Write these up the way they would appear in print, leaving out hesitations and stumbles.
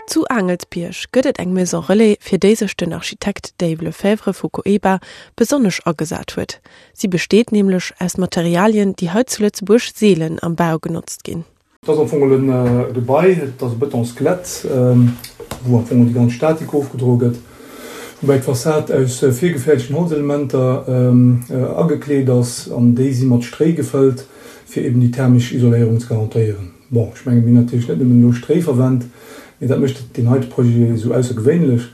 Zu Aangelsbierg gëtt et eng Maison Relais, fir déi sech den Architekt Dave Lefèvre vu Coeba besonnesch agesat huet. Si besteet nämlech aus Materialien, déi hei zu Lëtzebuerg seelen am Bau genotzt ginn. Et ass am Fong e Gebai, et ass e Betonskelett, wou am Fong déi ganz Statik ofgedroe gëtt, woubäi d'Fassad aus virgefäerdegten Holzelementer agekleet ass an déi si mat Stréi gefëllt, fir eben déi thermesch Isoléierung ze garantéieren. Bon, ech mengen, mir hunn natierlech net nëmmen elo Stréi verwennt, mee dat mécht deen heite Projet esou aussergewéinlech.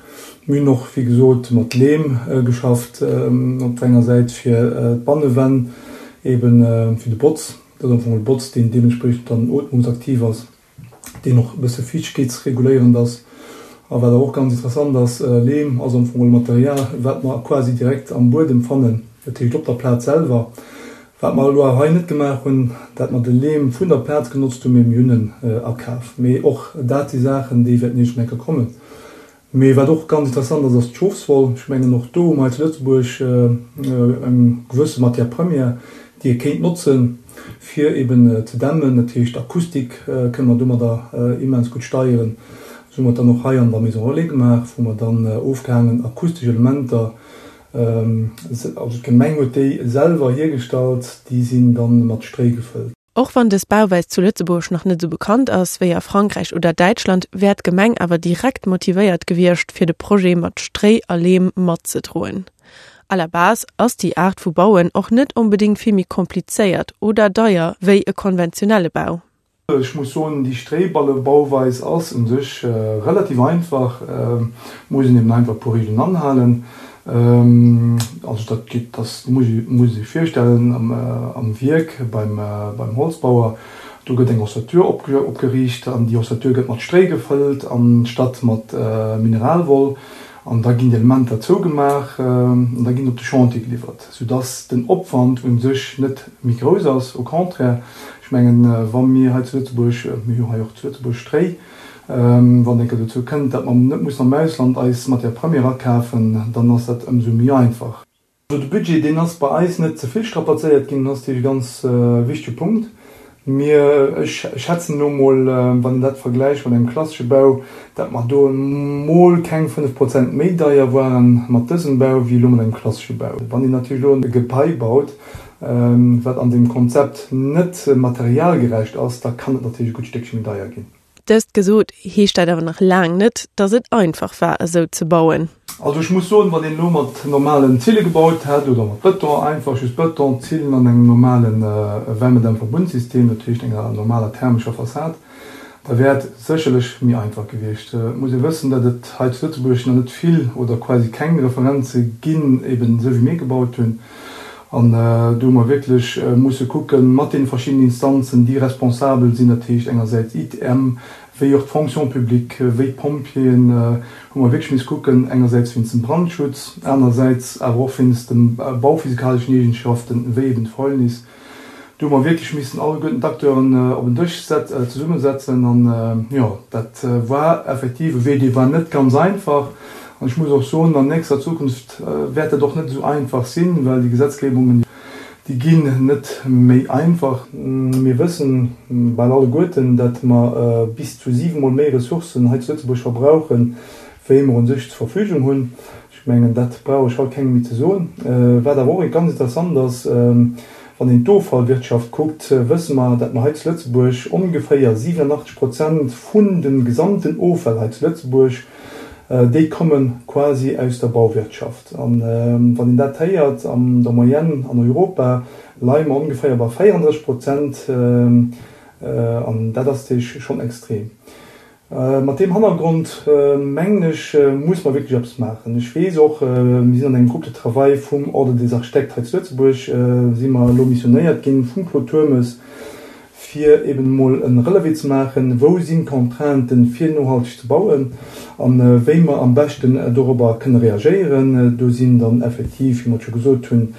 Mir hunn och, wéi gesot, mat Leem geschafft, op der enger Säit fir d'Bannewänn, eeben fir de Botz, dat ass am Fong e Botz, deen deementspriechend dann ootmungsaktiv ass, deen och e bësse fiichtegkeetsreguléierend ass. A wat awer och ganz interessant ass, Leem ass am Fong e Material, wat mer quasi direkt am Buedem fannen, dat heescht op der Plaz selwer. Wat mer elo awer hei net gemaach hunn, dat mer de Leem vun der Plaz genotzt hunn, mee mir hunn en akaf. Mee och dat si Saachen, déi wäerten iergendwann eng Kéier kommen. Mee wat och ganz interessant ass, ass d'Schofswoll. Ech mengen, och do hu mer hei zu Lëtzebuerg eng gewësse Matière première, déi ee kéint notzen, fir eben ze dämmen. Dat heescht, d'Akustik kënne mer domadder immens gutt steieren. Esou hu mer et dann och hei an der Maison relais gemaach, wou mer dann ofgehaangen akustesch Elementer Also d'Gemeng huet déi selwer hiergestallt, déi sinn dann mat Stréi gefëllt. Och wann dës Bauweis zu Lëtzebuerg nach net esou bekannt ass wéi a Frankräich oder Däitschland, wär d'Gemeng awer direkt motivéiert gewiescht, fir de Projet mat Stréi a Leem matzedroen. À la base ass déi Aart vu Bauen och net onbedéngt vill méi komplizéiert oder deier wéi e konventionelle Bau. Ech muss soen, déi Stréiballebauweis ass un sech relativ einfach, muss een eben einfach e puer Regeln anhalen. Also dat geet, dat muss ee sech virstellen am Wierk beim Holzbauer, do gëtt eng Ossature opgeriicht an déi Ossature gëtt mat Stréi gefëllt anstatt mat Mineralwoll an da ginn déi Elementer zougemaach an da ginn se op de Chantier geliwwert, soudass den Opwand un sech net méi grouss ass, au contraire. Ech mengen, wa mir hei zu Lëtzebuerg, mir hu jo hei och zu Lëtzebuerg Stréi, wann et eng Kéier dozou kënnt, datt mer net mussen am Ausland eis Matière première akafen, dann ass dat ëmsou méi einfach. Also de Budget, deen ass bei eis net ze vill strapazéiert ginn, dat ass natierlech e ganz wichtege Punkt. Mir, ech schätzen elo emol, wann een dat vergläicht mat engem klassesche Bau, datt mer do emol keng 5 Prozent méi deier ware mat dësem Bau wéi elo mat engem klassesche Bau. Wann een natierlech elo e Gebai baut, wat an deem Konzept net materialgerecht ass, da kann et natierlech e gutt Stéckche méi deier ginn. Dëst gesot, heescht dat awer nach laang net, datt et einfach war, esou ze bauen. Also ech muss soen, wann een elo mat normalen Zille gebaut hätt oder mat Bëton, einfach just Bëton, Zillen an engem normale Wärmedämmverbundsystem, dat heescht enger normaler thermescher Fassad, Da wär et sécherlech méi einfach gewiescht. Et muss ee wëssen, datt et hei zu Lëtzebuerg nach net vill oder quasi keng Referenze ginn, eben esou wéi mir gebaut hunn. An do hu mer wierklech musse kucken, mat deene verschiddenen Instanzen, déi responsabel sinn, dat heescht engersäits ITM, wéi och d'Fonction publique, wéi d'Pompjeeën, hu mer wierklech misse kucken, engersäits wéinst dem Brandschutz, anersäits awer och wéinst de bauphysikaleschen Eegenschaften, wéi eben d'Fäulnis. Do hu mer wierklech missen alleguerten d'Acteuren op en Dësch zesummesetzen an jo, dat war effektiv e Wee, dee war net ganz einfach. An ech muss och soen, an nächster Zukunft wäert dat och net esou einfach sinn, well déi Gesetzgebungen, déi ginn net méi einfach. Mir wëssen bal alleguerten, datt mer bis zu siwemol méi Ressourcen hei zu Lëtzebuerg verbrauchen, wéi mer u sech zur Verfügung hunn. Ech mengen, dat brauch ech haut kengem méi ze soen. Wat awer och ganz interessant ass, wann een d'Offallwirtschaft kuckt, wësse mer, dat mer hei zu Lëtzebuerg ongeféier 87 Prozent vun de gesamten Offäll hei zu Lëtzebuerg, déi komme quasi aus der Bauwirtschaft. A wann een dat héiert, an der Moyenne an Europa leie mer ongeféier bei 34 Prozent, an dat ass natierlech schonn extrem. Mat deem Hannergrond, mengen ech, muss mer wierklech eppes maachen. Ech weess och, mir sinn an engem Groupe de travail vum Ordre des architectes hei zu Lëtzebuerg, si mer elo missionéiert ginn vum Claude Turmes, fir eben emol e Relevé ze maachen, wou sinn d'Contrainten, fir nohalteg ze bauen a wéi mer am beschten dorobber kënne reagéieren. Do sinn dann effektiv, wéi mer et scho gesot hunn,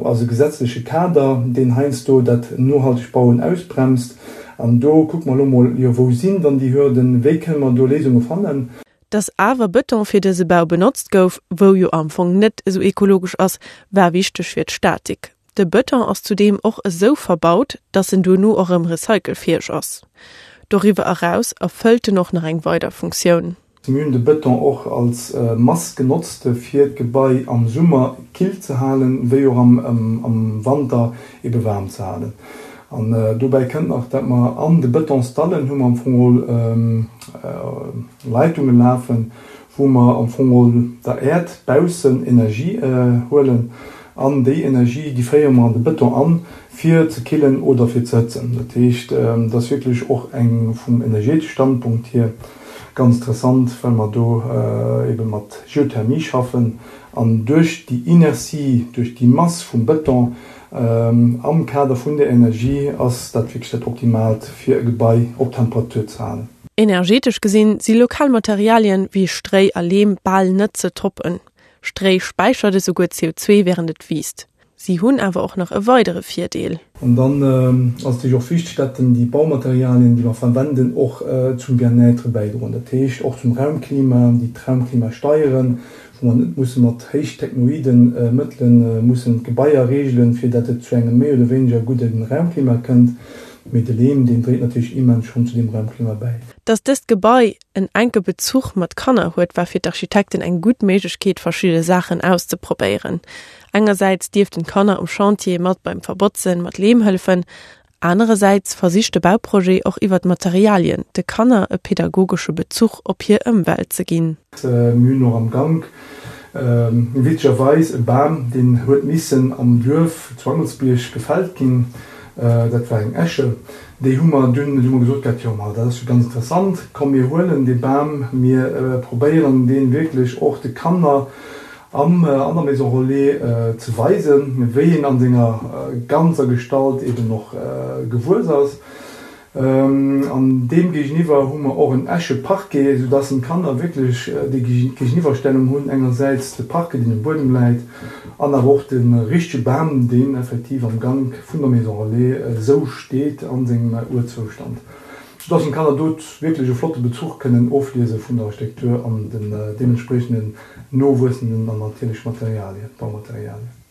ass e gesetzleche Kader, deen heiansdo dat nohaltegt Bauen ausbremst. An do kucke mer elo mol, jo, wou sinn dann déi Hürden, wéi kënne mer do Léisunge fannen? Dass awer Bëton fir dëse Bau benotzt gouf, wou jo am Fong net esou ekologesch ass, war wichteg fir d'Statik. De Bëton ass zudeem och esou verbaut, dass en duerno och erëm recycelfäeg ass. Doriwwer eraus erfëllt en och nach eng weider Funktioun. Mir hunn de Bëton och als Mass genotzt, fir d'Gebai am Summer kill ze halen, wéi och am Wanter ebe waarm ze halen. An dobäi kënnt nach, dat mer an de Bëtonsdallen hu mer am Fong geholl Leitunge lafen, wou mer am Fong geholl der Äerd baussen Energie huelen. An déi Energie, déi féiere mer an de Bëton an, fir ze killen oder fir ze hëtzen. Dat heescht, et ass wierklech och eng vum energeetesche Standpunkt hier Ganz interessant, well mer do ebe mat Geothermie schaffen an duerch déi Inertie, duerch déi Mass vum Bëton am Kader vun der Energie ass dat wierklech dat Optimaalt, fir e Gebai op Temperatur ze halen. Energetesch gesinn si lokal Materialien wéi Stréi a Leem bal net ze toppen. Stréi späichert esouguer CO2 wärend et wiisst. Si hunn awer och nach e weidere Virdeel. An dann ass et natierlech och wichteg, dat déi Baumaterialien, déi mer verwenden, och zum Bien-être bäidroen, dat heescht och zum Raumklima, déi d'Raumklima steieren, wou mer net musse mat héichtechnoide Mëttele mussen d'Gebaier reegelen, fir dat et zu engem méi oder wéineger gudde Raumklima kënnt. Mee de Leem, deen dréit natierlech immens schonn zu deem Raumklima bäi. Dass dëst Gebai en enke Bezuch mat Kanner huet, war fir d'Architekten eng gutt Méiglechkeet, verschidde Saachen auszeprobéieren. Engersäits dierften d'Kanner um Chantier mat beim Verbotzen mat Leem hëllefen, anerersäits versicht de Bauprojet och iwwer d'Materialien de Kanner e pedagogesche Bezuch op hir Ëmwelt ze ginn. Mir hunn och am Gank witzegerweis e Bam, deen huet missen am Duerf zu Angelsbierg gefällt ginn, dat war eng Esche. Déi hu mer dunn, hu mer gesot gehat, jo ma dat ass jo ganz interessant, komm mir huelen dee Bam, mir probéieren dee wierklech och de Kanner am an der Maison Relais ze weisen, wéi en an senger ganzer Gestalt eben och gewuess ass. An deem géigeniwwer hu mer och en Escheparquet, soudass d'Kanner wierklech déi Géigeniwwerstellung hunn, engersäits de Parquet, deen um Buedem läit, an awer och de richtege Bam, deen effektiv am Gank vun der Maison Relais esou steet a sengem Urzoustand, soudass d'Kanner do wierklech e flotte Bezuch kënnen ofliese vun der Architektur an den deementspriechenden nowuessenden an natierlech Materialien, Baumaterialien.